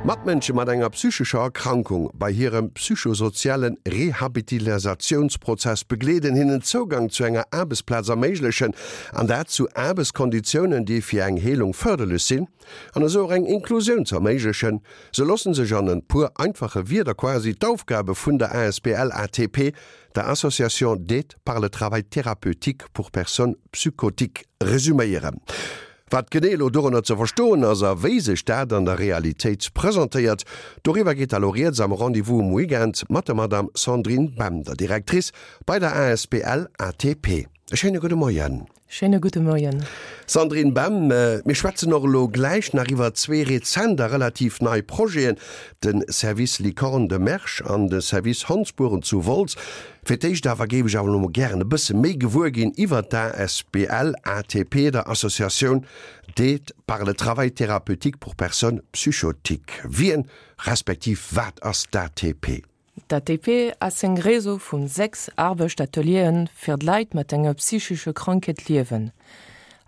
Matmënsche mat enger psychescher Erkrankung bei hirem psychosoziale Rehabilitasatiounsprozess begleeden, hinnen Zougang zu enger Aarbechtsplaz erméiglechen, an dat zu Aarbechtskonditiounen, déi fir eng Heelung fërderlech sinn, an esou och eng Inklusioun ze erméiglechen. Sou loosse sech an e puer einfache Wierder quasi d'Aufgabe vun der asbl ATP, der Association d'aide par le travail thérapeutique pour personnes psychotiques, resuméieren. Wat genee elo dorënner ze verstoen ass a wéi sech dat an der Realitéit presentéiert, doriwwer geet da lo rieds am Rendez-vous um Weekend mat der Madame Sandrine Bem, der Directrice bei der asbl ATP. E schéine gudde Moien. Schéine gudde Moien. Sandrine Bem, Mir schwätzen och elo gläich nach iwwer zwee rezent a relativ nei Projeten, de Service Licorne de Mersch an de Service Hondsbueren zu Wolz. Fir d'éischt awer géif ech awer elo mol gären e bësse méi gewuer ginn iwwer d'ASBL ATP, der Associatioun d'aide par le travail thérapeutique pour personnes psychotiques. Wien, respektiv wat ass d'ATP? D'ATP ass eng Réseau vun 6 Arbechtatelieren fir d'Leit mat enger psychesche Krankheet liewen.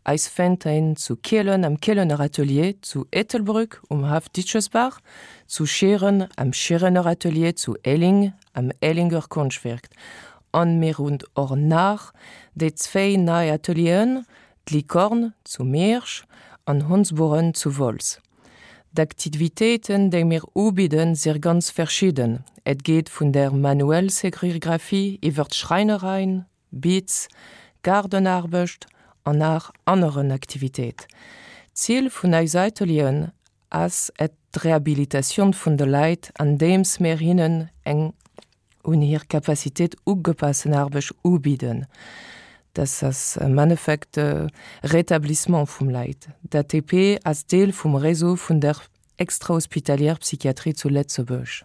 Eis fennt een zu Kielen am Kielener Atelier, zu Ettelbrück um Haff Ditschesbach, zu Schieren am Schierener Atelier, zu Elling am Ellinger Konschtwerk an mir hunn och nach déi zwéi nei Atelieren, d'Licorne zu Miersch an Hondsburen zu Wolz. D'Aktivitéiten, déi mir ubidden, si ganz verschidden. Et geet vun der manuell Serigraphie iwwer d'Schräinereien, Beats, Gaardenaarbecht an nach aneren Aktivitéit. D'Zil vun eis Atelieren ass et d'Rehabilitatioun vun de Leit andeems mir hinnen eng un hir Capacitéit ugepassen Aarbecht ubidden. Dat ass am Endeffekt de Rétablissement vum Leit. D'ATP ass Deel vum Réseau vun der extrahospitalière Psychiatrie zu Lëtzebuerg.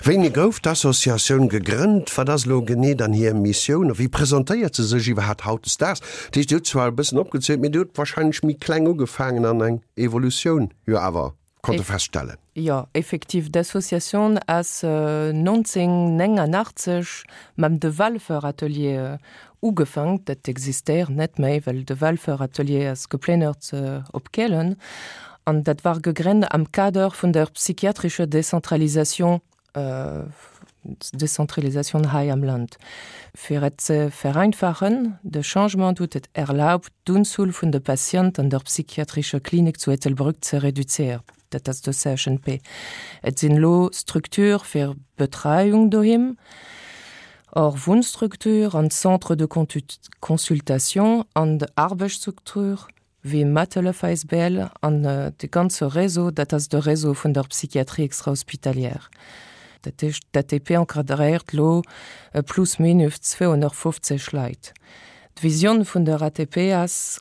Wéini gouf d'Associatioun gegrënnt? Wat ass elo genee dann hir Missioun a wéi presentéiert se sech iwwerhaapt hautdesdaags? Dat heescht, Dir hutt zwar e bëssen opgezielt, mee Dir hutt wahrscheinlech méi kleng ugefaangen an eng Evolutioun jo awer konnte feststellen. Jo, effektiv, d'Associatioun ass 1989 mam De Walfer Atelier Ugefank, dat existéiert net méi, well de Walfer Atelier ass geplénnert op Kehlen an dat war gegrennt am Kader vun der psychiatrischer Decentralisation, Decentralisation hei am Land. Fir et ze vereinfachen, de Changement huet et erlaubt, d'Unzuel vun de Patienten an der psychiatrischer Klinik zu Ettelbrück ze reduzéieren. Dat ass de CHNP. Et sinn elo Structure fir Betreiung doheem, och Wunnstruktur an Centre de consultation an Arbechtsstruktur wéi Mathelef asbl an de ganze Réseau, dat ass de Réseau vun der Psychiatrie extrahospitalière. Dat heescht, d'ATP encadréiert elo plus minus 250 Leit. D'Visioun vun der ATP ass,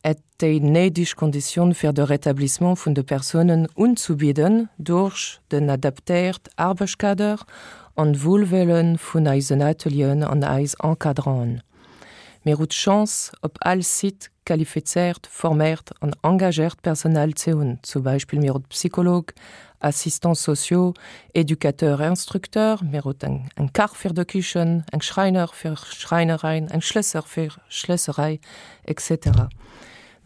et déi néideg Konditioun fir de Rétablissement vun de Persounen unzubidden duerch den adaptéiert Aarbechtkader an d'Wuelwëlle vun eisen Atelieren an eis Encadranten. Mir hu d'Chance, op all Site qualifizéiert, forméiert an engagéiert Personal ze hunn, zum Beispill mir hu Psycholog, Assistants sociaux, Éducateurs, Instructeurs, mir hu eng Kach fir de Kichen, eng Schräiner fir Schräinereien, eng Schlësser fir Schlësserei, etc.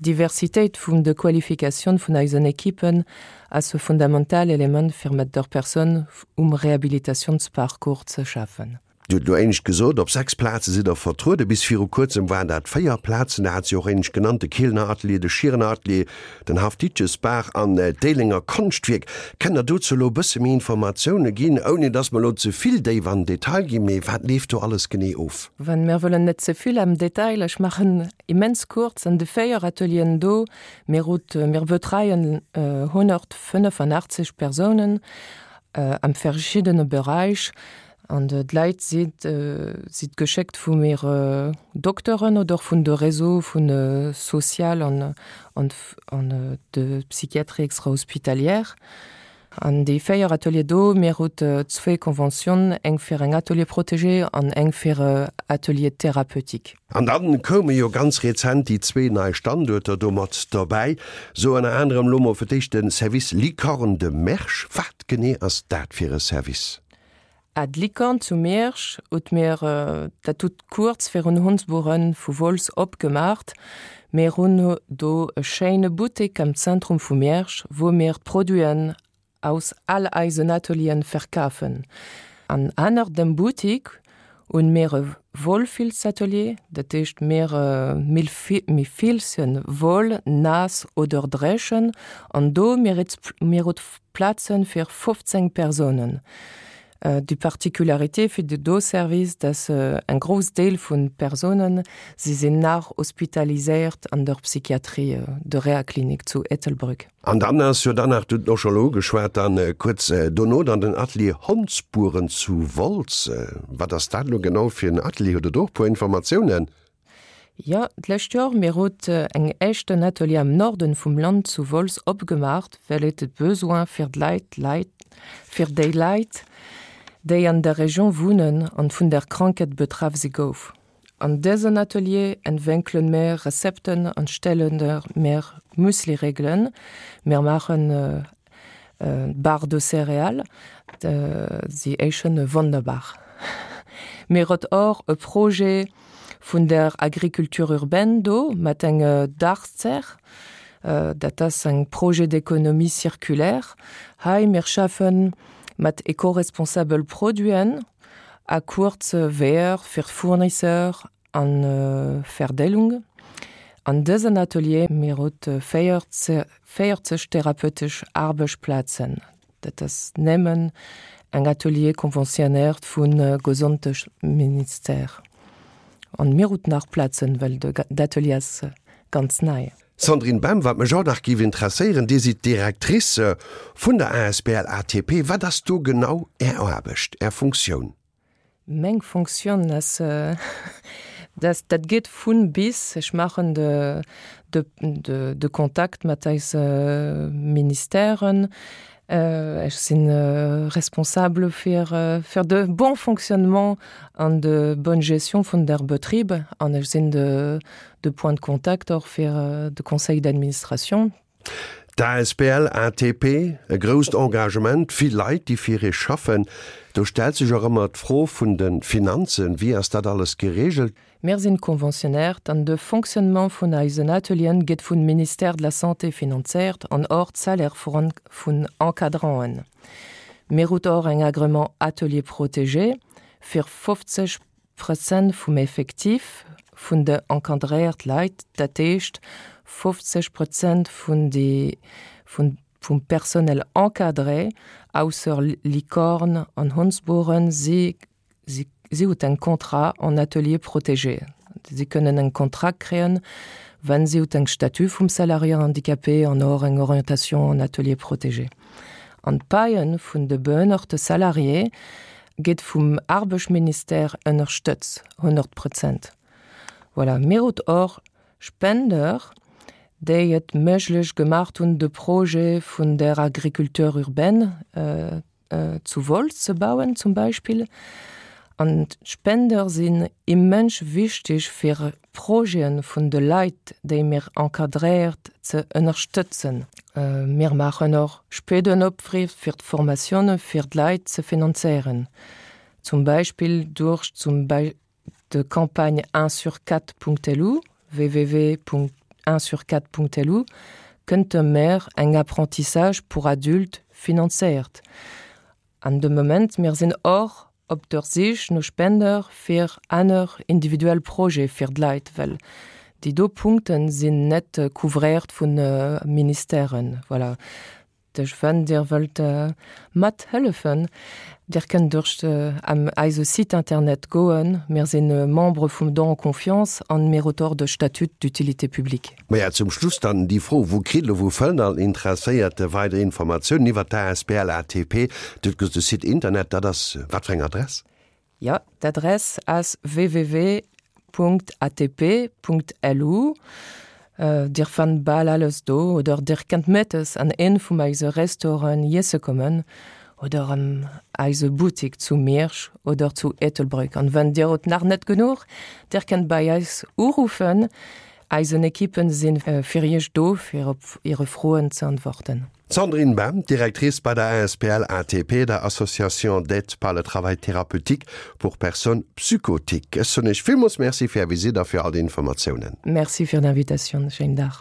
D'Diversitéit vun de Qualifikatioun vun eisen Ekippen ass e fundamental Element fir mat der Persoun um Rehabilitatiounsparcours ze schaffen. Dir hutt elo éinescht gesot, op 6 Plaze sidd Der vertrueden. Bis viru kuerzem waren dat 4 Plazen. Der hat se och éinescht genannt, de Kielener Atelier, de Schierener Atelier, den Haff Ditjesbaach an d'Éilenger Konschtwierk. Kënnt Der dozou elo e bësse méi Informatioune ginn, ouni datt mer elo ze vill déif an den Detail ginn, mee wat leeft do alles genee of? Well mir wëllen net ze vill am Detail, ech maachen immens kuerz, an de 4 Atelieren do, mir hutt, mir betreien 185 Persounen am verschiddene Beräich an d'Leit si si geschéckt vu mir Dokteren oder vun de Réseau vun social an an de Psychiatrie extra-hospitalière. An déi 4 Atelier do, mir hutt zwéi Conventionen, eng fir eng Atelier protégé an eng fir e Atelier thérapeutique. An dann koume jo ganz rezent déi zwee nei Standuerter do mat dobäi, sou ënner anerem elo mol fir d'éischt de Service Licorne de Mersch. Wat genee ass dat fir e Service? Ah, d'Licorne zu Miersch hutt mir dat hutt kuerz virun Hondsburen vu Wolz opgemaacht. Mir hunn do e schéine Buttek am Zentrum vu Miersch, wou mir d'Produiten. aus all eisen Atelieren verkafen. An anner dem Boutique hunn mir e Wollfilzatelier, dat heescht mir mir filzen Woll naass oder dréchen an do mir mir hutt Plazen fir 15 Persounen. Déi Particularité fir de do Service, dass eng grouss Deel vun Persounen, si sinn nach hospitaliséiert an der Psychiatrie, der Rehaklinik zu Ettelbréck. An dann ass jo dann nach, du hutt och scho elo ugeschwat, dann kuerz dono dann den Atelier Hondspuren zu Wolz. Wat ass dat elo genau fir en Atelier? Hutt Der do och e puer Informatiounen? Jo, d'lescht Joer, mir hutt eng éischten Atelier am Norden vum Land zu Wolz opgemaacht, well et de Besoin fir d'Leit, Leit, fir déi Leit, déi an der Region wunnen an vun der Krankheet betraff si gouf. An dësen Atelier entwénkelen mir Rezepten an stellen mir Müsli-Regelen. Mir maachen Barre de céréales, si éischen wonnerbar. Mir huet och e Projet vun der Agriculture urbaine do mat enge Dachzerr, dat ass eng Projet d'économie circulaire. Hei mir schaffen mat ecoresponsabel Produiten a kuerze Weeër fir d'Fournisseur an Verdeelung. An dësen Atelier mir huet 40 therapeutesch Aarbechtsplazen. Dat ass nëmmen eng Atelier conventionnéiert vu Gesondheetsministère. An mir hutt nach Plazen, well d'Atelier ass ganz nei. Sandrine Bem, Wat mech och nach géif interesséieren, Dir sidd d'Directrice vun der asbl ATP. Wat ass do genau Är Aarbecht, Är Funktioun? Meng Fonctioun ass, dass dat geet vun bis. Ech maachen de de Kontakt mat eise Ministèren. Ech si responsable fir fir de bon fonctionnement an de bonne gestion vun der Betrib an ech sinn de de Point de contact och fir de Conseil d'administration. D'asbl ATP, e grousst Engagement, vill Leit, déi fir ee schaffen. Do stellt sech och ëmmer d'Fro vun de Finanzen. Wéi ass dat alles gereegelt? Mir sinn conventionnéiert an de Fonctionnement vun eisen Atelieren gëtt vun Ministère de la Santé finanzéiert an och d'Salaire vun Encadranten. Mir hutt och eng Agrément Atelier protégé fir 50 Prozent vum Effectif vun de encadréiert Leit, dat heescht 50 Prozent vun de vum Personnel encadré, ausser Licorne an Hondsboren, si si hutt eng Contrat en atelier protégé. Si kënnen eng Contrat kréien, wann si hutt eng Statut vum Salarié handicapé an och eng Orientation en atelier protégé. An d'Paie vun de behënnerte Salarié Geet vum Arbechtsministère ënnerstëtz, 100 Prozent. Voilà, mir hutt och Spender, déi et méiglech gemaacht hunn, de Projet vun der Agriculture urbaine zu Wolz ze bauen zum Beispill. An d'Spender sinn immens wichteg fir Projeten vun de Leit, déi mir encadréiert, ze ënnerstëtzen. Mir maachen och Spendenopfriff fir d'Formatioune fir d'Leit ze finanzéieren, zum Beispill duerch zum de Campagne unsurquatre.lu, www.unsurquatre.lu, kënnt de mer eng Apprentissage pour adultes finanzéiert. An de Moment, mir sinn och op der Sich no Spender fir aner individuell Projete fir d'Leit, well déi do Punkte sinn net couvréiert vu Ministèren. Voilà. Duerch wann Dir wëllt mat hëllefen, Dir kënnt duerch eise Site internet goen. Mir si Membre vum Don en Confiance an mir auteur de Statut d'utilité publique. Maja, zum Schluss dann déi Fro, Wou kritt elo, wou fënnt all Interesséierte weider Informatiounen iwwert d'asbl ATP? Dir hutt gesot, de Site Internet, dat ass wat fir eng Adress? Jo, d'Adress ass www.atp.lu. Dir fannt bal alles do oder Dir kënnt mëttes an een vum eise Restauranten iesse kommen oder an eise Buttik zu Miersch oder zu Ettelbréck. An wann Dir hutt nach net genuch, Dir kënnt bei eis uruffen. Eisen Equippen sinn fir Iech do fir op Iere Froen ze antworten. D'Sandrine Bem, Directrice bei der asbl ATP, der Association d'aide par le travail thérapeutique pour personnes psychotiques. Ech soen Iech villmools Merci fir Är Visitt a fir all déi Informatiounen. Merci fir d'Invitatioun. Schéinen Dag.